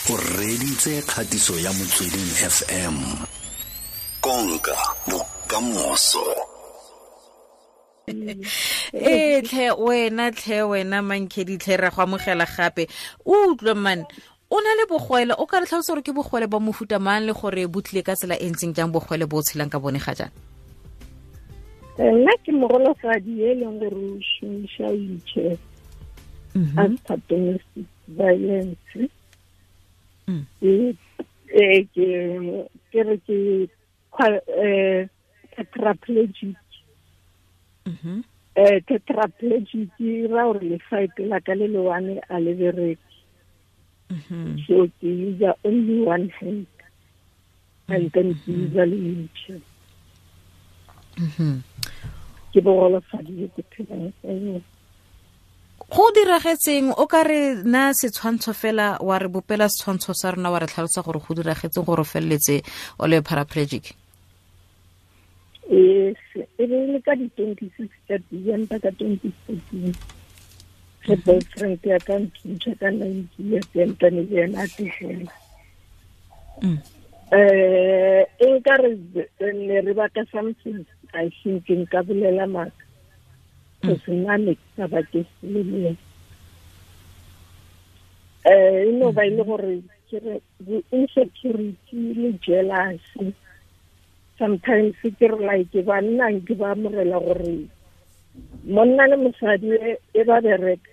O reditse kgatiso ya Motsweding FM. Konka bokamoso. Ee tlhe wena, tlhe wena Mankhedi, tlhe ra go amogela gape. O utlwe man, o na le bogwele, o ka re tlhalosa gore ke bogwele ba mofuta mang le gore bo tlile ka tsela e ntseng jang, bogwele bo o tshelang ka bone ga jaana? Nna ke mogolofadi e leng gore o šomiša wheelchair after domestic violence. Ke re ke tetraplegic. Tetraplegic e ra gore lefaete la ka le le one a le bereke. So ke use only one hand and then ke use le wheelchair. Ke bogolofadi jo ke phelang ka yone. Go diragetseng, o ka re na setshwantsho fela, wa re bopela setshwantsho sa rona, wa re tlhalosa gore go diragetseng gore o feleletse o le paraplegic? Yes, e be le ka di-26 tsa December ka 2014, ge boyfriend ya ka nthuntšha ka 9 years, entane le ena a tlogela. E nka re ne re baka something, I think nka bolela maaka, cause nna ne ke sa bake selo le ena. E no ba e le gore ke re insecurity le jealousy. Sometimes ke re, like, banna ke ba amogela gore monna le mosadi e ba bereka,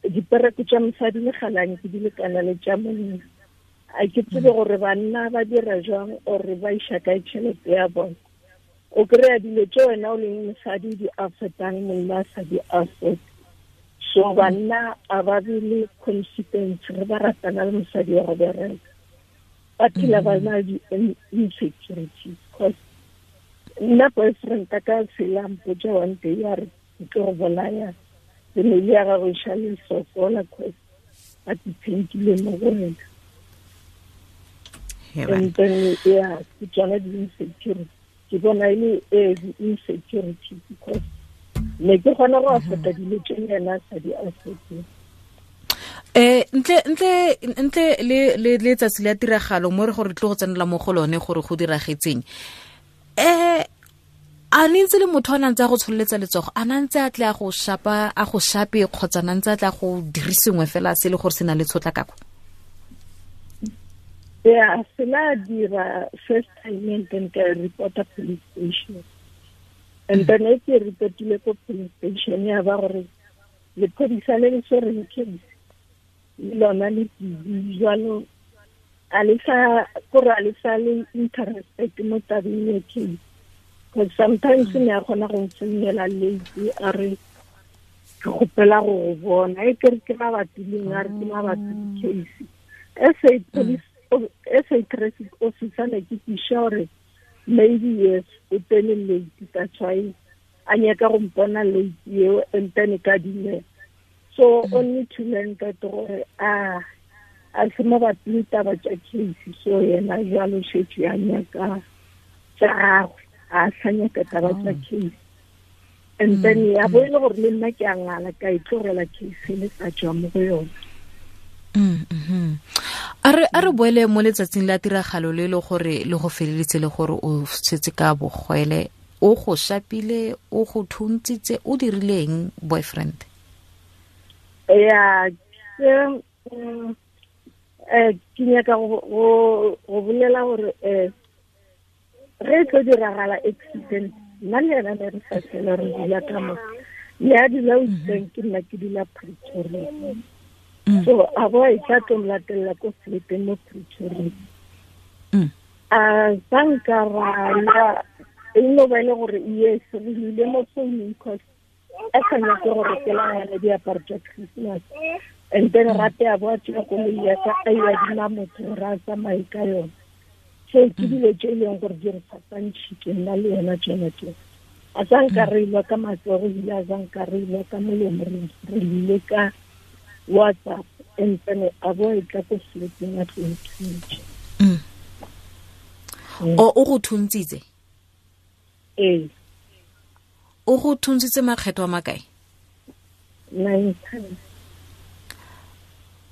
dipereko tša mosadi le galang ke di lekana le tša monna. A ke tsebe gore banna ba dira jwang or ba iša kae tšhelete ya bona. O kry-a dilo tše wena o leng mosadi di affordang, monna a sa di afford. So banna a ba be le confidence ge ba ratana le mosadi wa go bereka, ba phela ba na le di-insecurities. Cause nna boyfriend a ka sela mpotsa one day a re, "Ke tlo go bolaya, family ya gago e šale e sokola cause ba dependile mo go wena." And then, yeah, ke tsona di-insecurity, ke bona e le di-insecurity, because ne ke kgona go afforda dilo tse yena a sa di affordeng. Ntle le letsatsi la tiragalo mo re gore tle go tsenela mo go lone gore go diragetseng, a ne ntse le motho a nantse a go tsholeletsa letsogo, a nantse a tle a go shapa, a go shape, kgotsa nantse a tle a go dire sengwe fela se le gore se na le tshotlakako? Yeah, se la dira first time and then ka reporta police station. And then e ke reportile ko police station, ya ba gore lephodisa le le swereng case le lona le busy jalo, a le sa kore a le sa le interested mo tabeng ya case, because sometimes ne a kgona go mfounela late, a re, "Ke kgopela go go bona," e kere ke mabapi leng, a re ke mabapi le case. SA police, SA traffic officer, ne ke tiša gore maybe yes, o tsene late, that's why a nyaka go mpona late eo, and then ka dumela. So only to learn that gore a se mabapi le taba tša case, so yena jalo šetse a nyaka tša gagwe, a sa nyaka taba tša case. And then ya bo e le gore le nna ke a ngala, ka e tlogela case le sa tswa mo go yona. A re boele mo letsatsing la tiragalo le le gore le go feleletse le gore o setse ka bogwele. O go shapile, o go thuntsitse, o dirileng boyfriend? Ya, ke ke nyaka go bolela gore ge e tlo diragala accident, nna le yena ne re sa tlhela re dula ka mo, le a dula Witbank, ke nna ke dula Pretoria. So a bo e tla tlo mlatelela ko flateng mo Pretoria. A sanka ra lwa, e no ba e le gore yes, re lwile mo founung, cause a sa nyake go rekela ngwana diaparo tša Christmas. And then gape a bo a tšea koloi ya ka, a e adima motho gore a tsamaye ka yona. So ke dilo tše e leng gore di re fapantšhitše nna le yena tsona tse. A sa nka re ilwa ka matsogo, ebile a sa nka re ilwa ka molomo, re ile ka WhatsApp, and then a bo e tla ko flateng a tlo nthuntšha. O go thuntsitse? Ee. O go thuntsitse makgetho a makae? Nine times.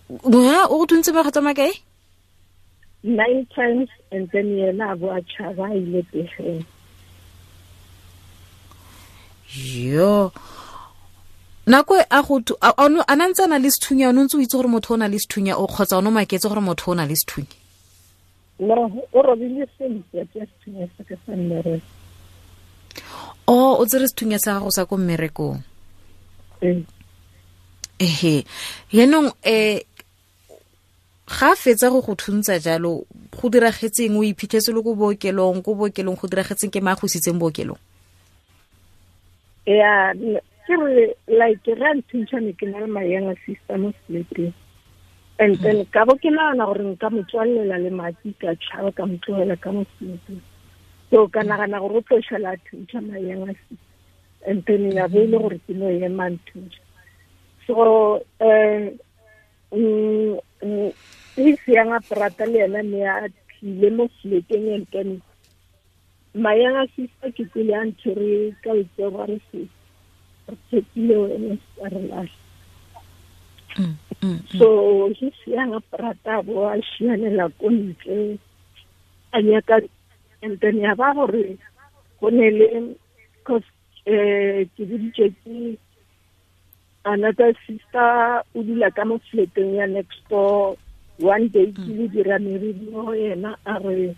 Ha o go thuntse makgetlo a makae? 9 times, and then yena a bo a tšhaba a ile pegeng. Yo, nako e a go a na ntse a na le sethunya, o ne ntse o itse gore motho o na le sethunya o kgotsa o ne o maketse gore motho o na le sethunya? No, o robile sentle ke sethunya sa ka sa mmereko. O o tsere sethunya sa gago sa ko mmerekong? Ee. Ehe, yaanong ga fetsa go go thuntsa jalo, go diragetseng? O iphitlhetse le ko bookelong, ko bookelong go diragetseng? Ke mang go isitseng bookelong? Ya, ke re like ra nthuntšha ne ke na le my younger sister mo sleeping, and then ka bo ke nagana gore nka mo tswalela le mati ka tšhaba ka mo tlogela ka mo sleeping. So ka nagana gore o tlo šala a thuntšha my younger sister, and then ya bo e le gore ke no ema nthuntšha. So his younger brother le yena ne a tlile mo fleteng, and then my younger sister ke kwele a ntshwere ka letsogo a re se re tshepile wena se ka re lahla. So his younger brother bo a šianela ko ntle a nyaka, and then ya ba gore go ne le cause ke boditše ke another sister o dula ka mo fleteng ya next door. One day ke le dira meriri mo go yena, a re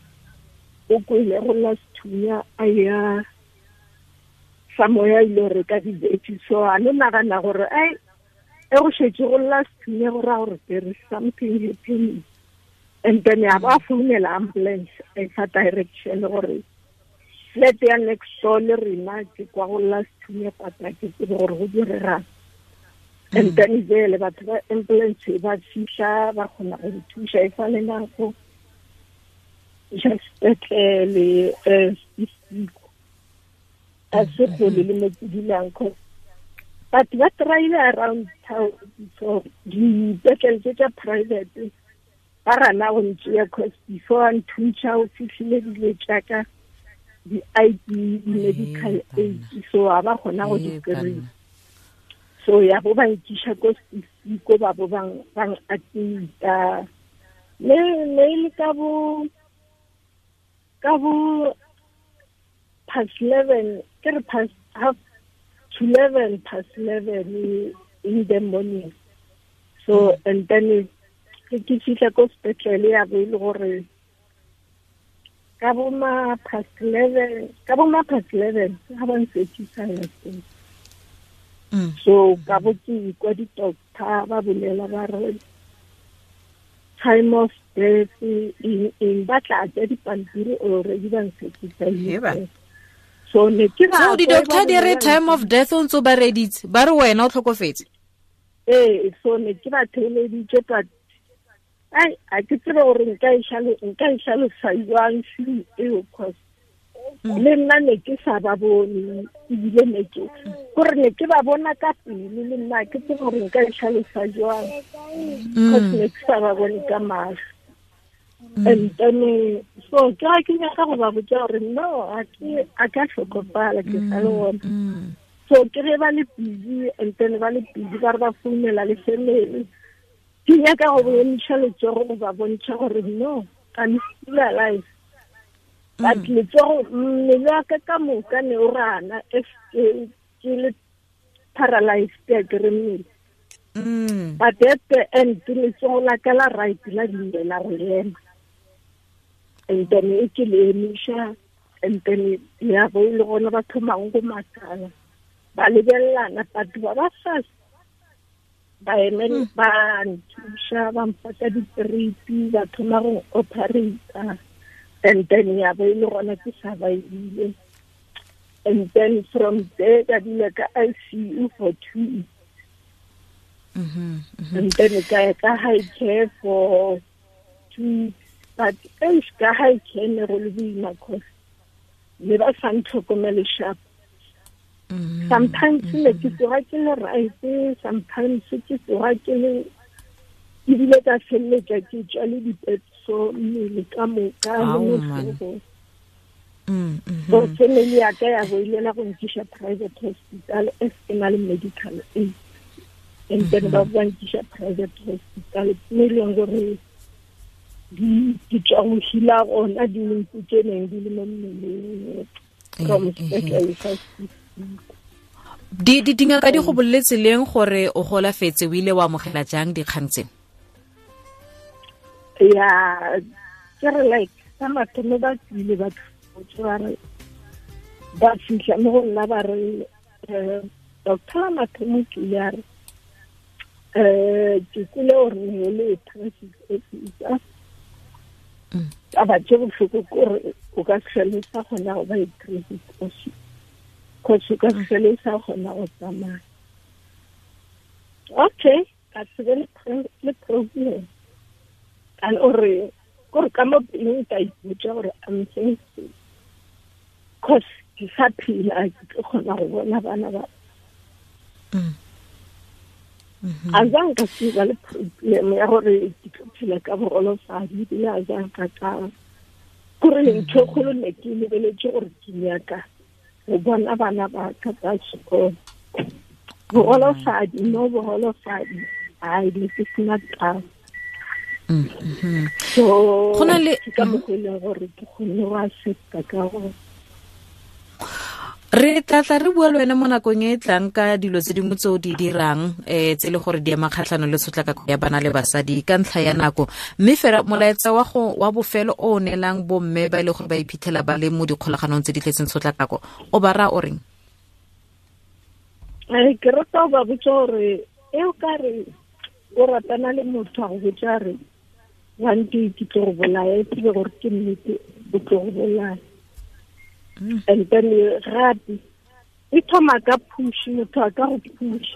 o kwele go lla sethunya a ya sa moya ile reka di-veggie. So a no nagana gore ai e go šetše go lla sethunya go raya gore there is something happening, and then ya ba founela ambulance a e fa direction gore flat ya next door le rena ke kwa go lla sethunya, pata ke tsebe gore go diregang. And then jele batho ba ambulance ba fihla ba kgona go thuša e sa le nako iša sepetlele Siko a se kgole le mo ke dulang, cause batho ba tryile around town. So dipetlele tse tša private ba gana go ntšea, cause before a nthuntšha o fihlile dilo tšaka di-ID, di-medical aid, so a ba kgona go di kry-a. So ya bo ba nkiša ko Siko, ba bo bang admita ne le ka bo past 11, ke re past half to 11, past 11 in the morning. So and then ke fihla ko sepetlele ya bo e le gore ka bo ma past 11, ka bo ma past 11 ga ba nsekisa ya teng. So ka bo ke kwa di-doctor ba bolela ba re time of death in ba tla tsa dipampiri already ba nsekisa. So ne ke so di-doctor di re time of death o ntse ba reditse ba re wena o tlhokofetse? Ee, so ne ke ba theeleditše, but ai a ke tsebe gore nka e hlalosa jwang feeling eo, cause le nna ne ke sa ba bone, ebile ne ke gore ne ke ba bona ka pele, le nna ke tsebe gore nka e hlalosa jwang, cause ne ke sa ba bone ka mahlo. And then so ke ga ke nyaka go ba botša gore no a ka hlokofala ke sa le gona. So ke ge ba le busy, and then ba le busy ba re ba founela le family, ke nyaka go bontšha letsogo go ba bontšha gore no I'm still alive. But letsogo mmele wa ka ka moka ne o rana if ke le paralyzed ke re mmele. But at the end letsogo la ka la right la dumela go ema, and then e ke le emiša, and then ya bo e le gona ba thomang go makala ba lebelelana, batho ba ba fast ba emele ba nthuša ba mpaka di-tripi ba thoma go operata, and then ya bo e le gona ke survivile. And then from there ka dula ka ICU for 2 weeks. And then ka ya ka high care for 2 weeks, but eish ka high care ne go le boima, cause ne ba sa ntlhokomele sharp. Sometimes ne ke tsoga ke le right, sometimes ke tsoga ke le ebile ka feleletša ke tšwa le dipetso mmele ka moka le mohlogong. So family ya ka ya bo ilela go nkiša private hospital as ke na le medical aid. And then ba ba nkiša private hospital, mo e leng gore di tswa go hila gona dintsi tse neng di le mo mmeleng from sepetlele sa Di dingaka di go boleletse leng gore o golafetse? O ile wa amogela jang dikgang tse? Ya, ke re like sa mathomo ba tsile ba tlhotse, ba re ba fitlha mo go nna, ba re doctor la mathomo ke ile a re ke kwele gore ne le traffic officer. Taba tse botlhoko kore o ka se tlhole sa kgona go ba i-traffic officer, cause o ka se tlhole sa kgona go tsamaya. Okay, ka se be le problem and ore kore ka mo pelong ka ipotsa gore I'm thankful, cause ke sa phela, ke tlo kgona go bona bana ba. A zang ka se ba le problem ya gore ke tlo phela ka bogolofadi, ebile a zang ka kore ntho e kgolo ne ke lebeletse gore ke nyaka go bona bana ba ka tsa sekolo. Bogolofadi no bogolofadi ai ne ke sena taba. So Go na le ke ka mokgwa e leng gore ke kgonne go accepta ka go Re tla tla re bua le wena mo nakong e e tlang ka dilo tse dingwe tse o di dirang, tse e le gore di ema kgatlhanong le tshotlakako ya bana le basadi ka ntlha ya nako. Mme fela molaetsa wa go wa bofelo o o neelang bomme ba e le gore ba iphitlhela ba le mo dikgolaganong tse di tletseng tshotlakako, o ba raya o reng? Ke rata go ba botsa gore e o ka re o ratana le motho a go botsa re one day ke tlo go bolaya, e tsebe gore ke nnete o tlo go bolaya. And then gape e thoma ka push, motho a ka go push.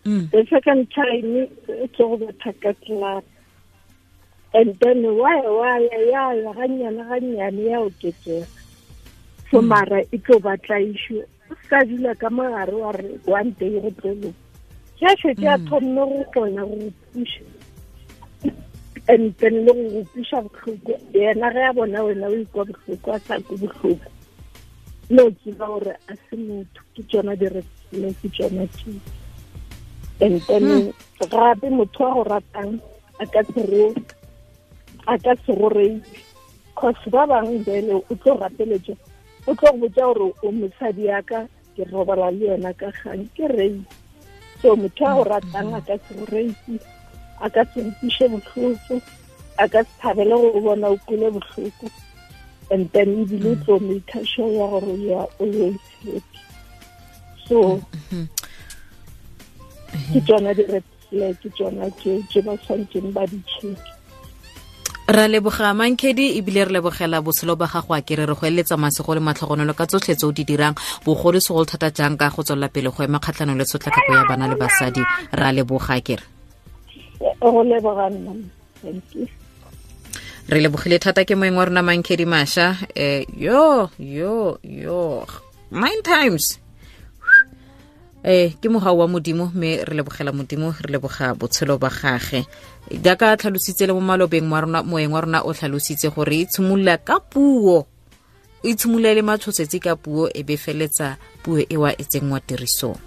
The second time e tlo go betha ka clap. And then why ya ya gannyane gannyane ya oketsega. So mara e tlo batla issue. O ska dula ka mogare wa re one day go tlo loka. Ke a šetše a thomile go kgona go push. And then le go kweša bohloko, yena ge a bona wena o ikwa bohloko, a sa kwe bohloko, le o tseba gore a se motho, ke tšona di-red flag, ke tšona tše. And then gape motho wa go ratang a ka se go rape, cause ba bangwe bele o tlo rapeletša, o tlo go botša gore o mosadi ya ka, ke robala le yena ka kgang, ke rape. So motho wa go ratang a ka se go rape, a ka se nkwiše bohloko, a ka se thabele go bona o kwele bohloko. And then ebile o tlo make sure ya gore you are always happy. So ke tsona di-red flag, ke tsona tse ba tshwanetseng ba di check. Ra leboga Mankhedi, ebile re lebogela botshelo ba gago, a kere re go eletsa masego le matlhogonolo ka tsotlhe tse o di dirang, bogolo segolo thata jang ka go tswelela pele go ema kgatlhanong le tshotlakako ya bana le basadi. Ra leboga kere. Go leboga nna. Thank you. Re lebogile thata ke moeng wa rona Mankhedi Masha. Yo yo yo 9 times. Ke mogau wa Modimo, mme re lebogela Modimo, re leboga botshelo ba gage. Jaaka tlhalositse le mo malobeng wa rona, moeng wa rona o tlhalositse gore e tshimolola ka puo, e tshimolola le matshosetsi ka puo, e be feletsa puo ewa e tsenngwa tirisong.